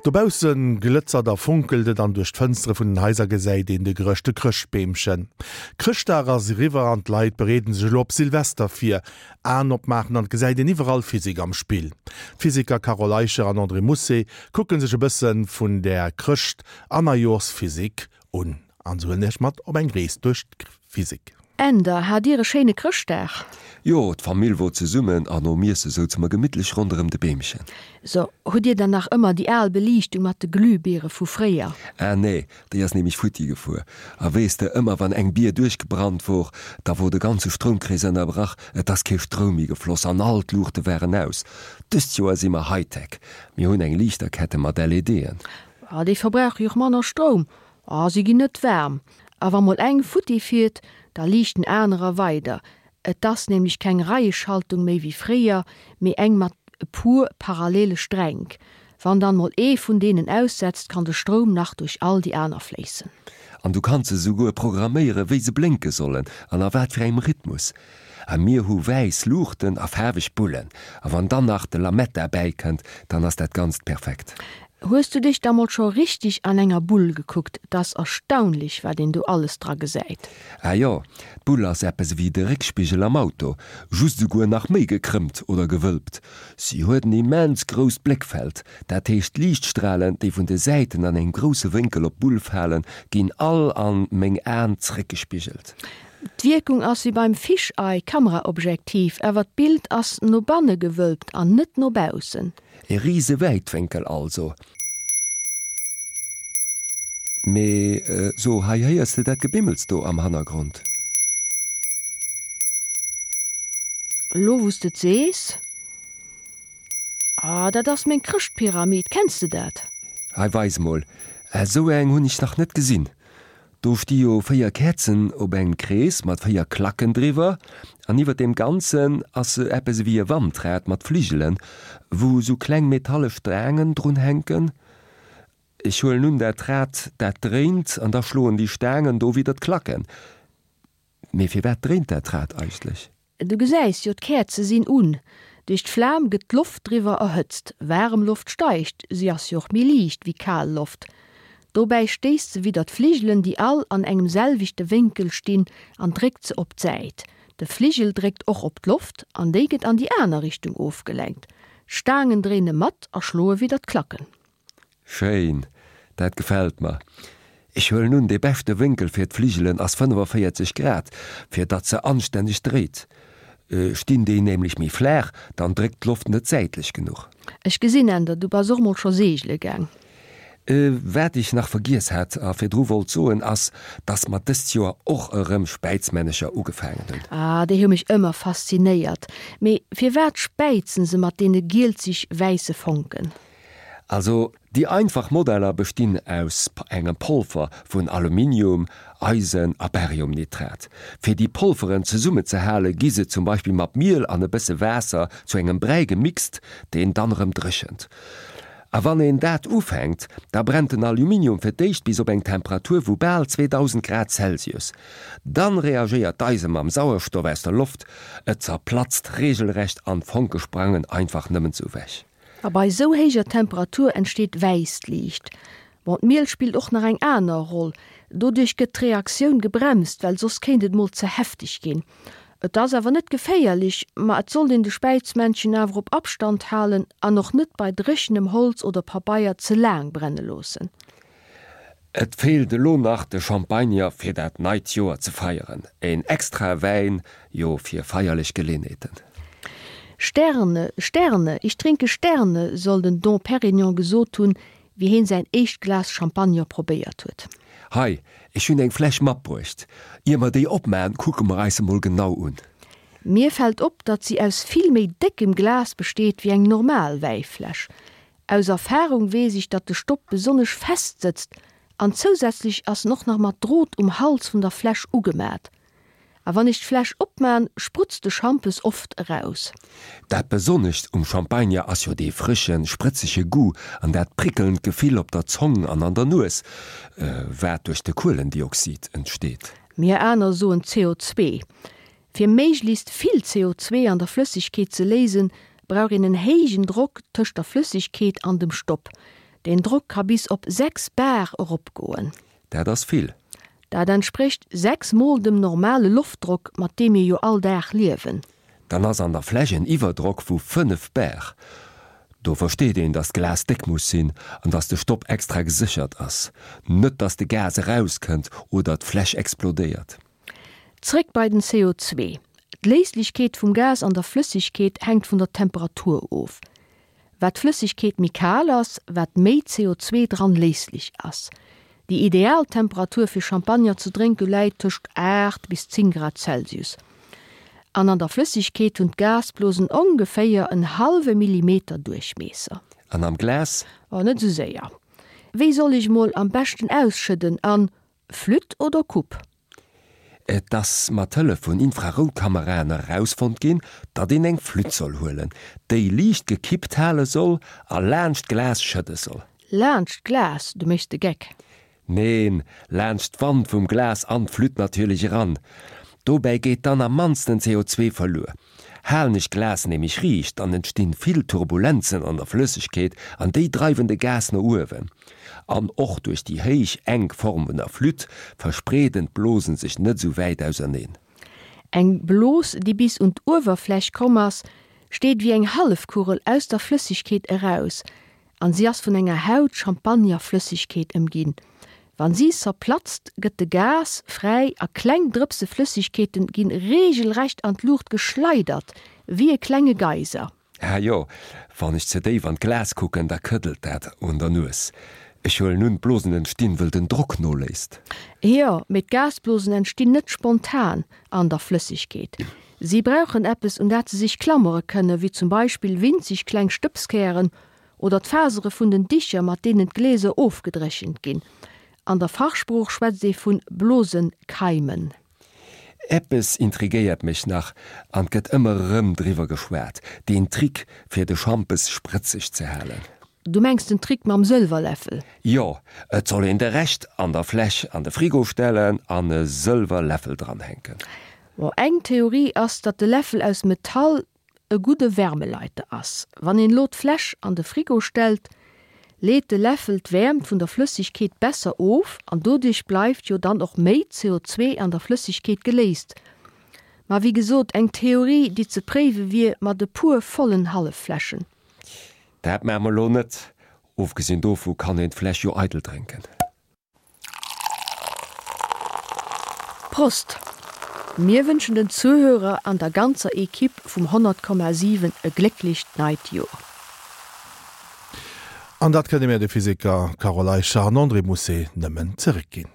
Dobausse glëtzert a fonkelt et an duerch d'Fënstere vun den Haiser gesäit een de gerëschte Chrëschtbeemchen. Chrëschtdag ass eriwwer an d'Leit bereeden sech elo op Silvester vir. Aen opmaachen an et gesäit een iwwerall Physik am Spill. D'Physiker Carole Eicher an André Mousset kucke sech e bësse vun där Chrëscht an Neijoerschphysik un an se huelen iech mat op eng Rees duerch d'Physik. Änder, Hat dir e schéine Chrëschtdag? Jo, d'Famill wor zesummen an nom Iesse souze mer gemittlech ronderëm de Beemchen. So, hutt dir dann nach ëmmer déi al Beliichtung mat de Glühbiere vu fréier? Ah nee, déi ass nämlech futti gefuer. A weess de, ëmmer wann eng Bier duerchgebrannt wor, da wor de ganze Stroumkrees ënnerbrach, et ass kee Stroum méi gefloss an all d'Luuchte waren aus. Dëst Joer si mer Hightech, mir hunn eng Liichterkette mat LEDen. Ah, déi verbrauche jo och manner Stroum. Ah, si ginn net waarm. A wa mol eng futti fiert, da liichten anerer weider. Et ass nämlech keng Reieschaltung méi wéi fréier, mee eng mat e puer parallele Stränk. Wann dann mol ee vun deenen aussetzt, kann de Stroum nach duerch all déi aner fléissen. An du kanns se souguer programméieren, wéi se blénke sollen an a wat fir engem Rhythmus. A mir hu wäiss Luuchten a faarweg Bullen. A wann dann nach de Lametta bäikënnt, dann ass dat Ganzt perfekt. Hues du dech da mol scho richteg an enger Bull gekuckt? Et ass erstaunlech, wat een do alles dra gesäit. Ah jo, d'Bull ass eppes ewéi de Réckspigel am Auto, just esouguer nach méi gekrëmmt oder gewölbt. Si huet en immens grousst Bléckfeld, dat heescht d'Liichtstralen, déi vun de Säiten an engem grousse Wénkel op d'Bull falen, ginn all an meng Aen zréckgespigelt. D'Wierkung ass wéi beim Fisheye Kameraobjektiv, awer d'Bild ass no banne gewölbt an net no baussen. E rise Wäitwénkel also. Mee so, hei héiers de dat Gebimmels do am Hannergrond? Lo wous de et sees. Ah, dat ass meng Chrëschtpyramid, kenns de dat? Hei, weis mol. Esou eng hunn ech nach net gesinn. Do sti jo 4 Käerzen op engem Krees mat 4 Klacken driwwer an iwwer deem Ganzen ass eppes ewéi e Wandrad mat Fligelen, wou sou kleng metalle Staangen drun hänken. Ech huelen un, dat Rad dat dréint an da schloen déi Staangen do widder d'Klacken. Mee firwat dréint dat Rad eigentlech? Du gesäis jo, d'Käerze sinn un. Duerch d'Flam gëtt d'Loft driwwer erhëtzt. Waarem Loft steigt, si ass jo och méi liicht wéi kal Loft. Dobäi stéisst se widder d'Fligelen, déi all an engem selwechte Wénkel stinn, an dréckt se op d'Säit. De Fligel dréckt och op d'Loft an déi gëtt an déi aner Richtung ofgelenkt. D'Staangen dréine mat a schloe widder d'Klacken. Schéin, dat gefällt mer. Ech huelen un, dee beschte Wénkel fir d'Fligelen ass 45 Grad, fir datt se anstänneg dréit. Stinn déi nämlech méi flaach, dann dréckt d'Loft net säitlech genuch. Ech gesinn, Änder, du bass och mol scho seegele gaang. Wat ech nach vergiess hat a virdru wollt soen, ass, datt mer dëst Joer och erëm Späizmännecher ugefaangen hunn. Ah, déi hu mech ëmmer faszinéiert. Mee firwat späizen se mat deene gielzeg-wäisse Fonken? Also déi einfach Modeller bestinn aus engem Polver vun Aluminium, Eisen a Bariumnitrat. Fir déi Polveren zesummenzehale gi se zum Beispill mat Miel an e bësse Waasser zu engem Bräi gemixt, deen dann erëm dréchent. A wann een dat ufänkt, da brennt den Aluminium fir d'éischt bis op eng Temperatur vu bal 2000 Grad Celsius. Dann reagéiert d'Eise mam Sauerstoff aus der Loft, et zerplatzt regelrecht an d'Fonke sprangen einfach nëmmen sou wech. A bei esou héijer Temperatur entsteet wäisst Liicht. Bon, d'Miel spillt och nach eng aner Roll. Doduerch gëtt d'Reaktioun gebremst, well soss kéint et mol ze hefteg ginn. Et ass awer net geféierlech, ma et sollt een de Späizmännchen awer op Abstand halen an och net bei dréchenem Holz oder Pabeier ze laang brenne loossen. Et feelt elo nach de Champagner fir dat neit Joer ze feieren, een extrae Wäin jo fir feierlech Geleenheeten. Sterne, Sterne, ich trinke Sterne, soll den Dom Perignon gesot hunn, wéi heen säin éischt Glas Champagner probéiert huet. Hei, ech hunn eng Fläsch matbruecht. Ier mer déi opmaen, kucke mer eis se mol genau un. Mir fält op, datt si aus vill méi déckem Glas besteet wéi eng normal Wäifläsch. Aus Erfahrung weess ech datt de Stopp besonnesch fest sëtzt an zousätzlech ass en och nach mat Drot um Hals vun der Fläsch ugemat. A wann ech d'Fläsch opmaan sprutzt de Schampes oft eraus. Dat Besonnescht um Champagner ass jo dee frëschen, sprëtzege Goût an dat prickelnd Gefill op der Zong an an der Nues, wat duerch de Kuelendioxid entsteet. Mir aner soen CO2. Fir méiglechst vill CO2 an der Flëssegkeet ze léisen, brauch een en héijen Drock tëscht der Flëssegkeet an dem Stopp. Deen Drock ka bis op 6 Bar eropgoen. Dat ass vill. Dat entsprécht 6 mol dem normale Loftdrock, mat deem mir jo all Dag liewen. Dann ass an der Fläsch en Iwwerdrock vu 5 Bar. Do versteet een, dass d'Glas déck muss sinn an dass de Stopp extra geséchert ass. Net dass de Gas erauskënnt oder d'Fläsch explodéiert. Zréck bei den CO2. D'Léislechkeet vum Gas an der Flëssegkeet hänkt vun der Temperatur of. Wat d'Flëssegkeet méi kal ass, wat méi CO2 dran léislech ass. Déi ideal Temperatur fir Champagner ze drénke läit tëscht 8 bis 10 Grad Celsius. An an der Flëssegkeet hunn d'Gasblosen ongeféier en hallwe Millimeter Duerchmiesser. An am Glas? Oh, net esou séier. Wéi soll ech mol am beschten ausschëdden? An Flütt oder Coupe? Et ass mat Hëllef vun Infraroutkameraen erausfonnt ginn, datt een eng Flütt soll huelen, déi liicht gekippt hale soll a laanscht d'Glas schëdde soll. Laanscht d'Glas? Du méchs de Geck. Neen, laanscht d'Wand vum Glas an d'Flütt natierlech eran. Dobäi geet dann am mannsten CO2 verluer. Halen ech d'Glas nämlech riicht, dann entstinn vill Turbulenzen an der Flëssegkeet an déi dreiwen de Gas no uewen. An och duerch déi héich, enk Form vun der Flütt verspreeden d'Blosen sech net esou wäit auserneen. Eng Blos, déi bis un d'Uewerfläch komm ass, steet wéi eng Hallefkugel aus der Flëssegkeet eraus an si ass vun enger Haut Champagnerflëssegkeet ëmginn. Wann si zerplatzt, gëtt de Gas fräi a kleng Drëpse Flëssegkeeten ginn reegelrecht an d'Luucht geschleidert, wéi e klenge Geyser. Ah jo, wann ech ze déif an d'Glas kucken, da këddelt dat un der Nues. Ech huelen un, d'Blosen entstinn, wëll den Drock noléisst. Jo, mee d'Gasblosen entstinn net spontan an der Flëssegkeet. Si brauchen eppes, un dat se sech klammere kënnen, wéi zum Beispill winzeg kleng Stëbskären oder d'Fasere vun den Dicher, mat deenen d'Gläser ofgedréchent ginn. An der Fachsprooch schwätzt ee vu Blosenkeimen. Eppes intrigéiert mech nach, an 't gëtt ëmmer erëm driwwer geschwat, deen Trick fir de Schampes sprëtzeg ze halen. Du mengs den Trick mam Sëlwerläffel? Jo, et soll een de Rescht an der Fläsch an de Frigo stellen an e Sëlwerläffel dranhänken. Bon, eng Theorie ass, datt de Läffel aus Metall e gudde Wärmeleiter ass. Wann een elo d'Fläsch an de Frigo stellt, leet de Läffel d'Wäermt vun der Flëssegkeet besser of an doduerch bleift jo dann och méi CO2 an der Flëssegkeet geléist. Ma wéi gesot, eng Theorie, déi ze préiwe wier mat e puer vollen Halleffläschen. Dat maache mer elo net. Ofgesinn dovu kann een d'Fläsch jo eidel drénken. Prost! Mir wënschen den Zuhörer an der ganzer Equipe vum 100,7 e glécklecht neit Joer. An dat kënne mir de Physiker Carole Eicher an André Mousset nëmmen zeréckginn.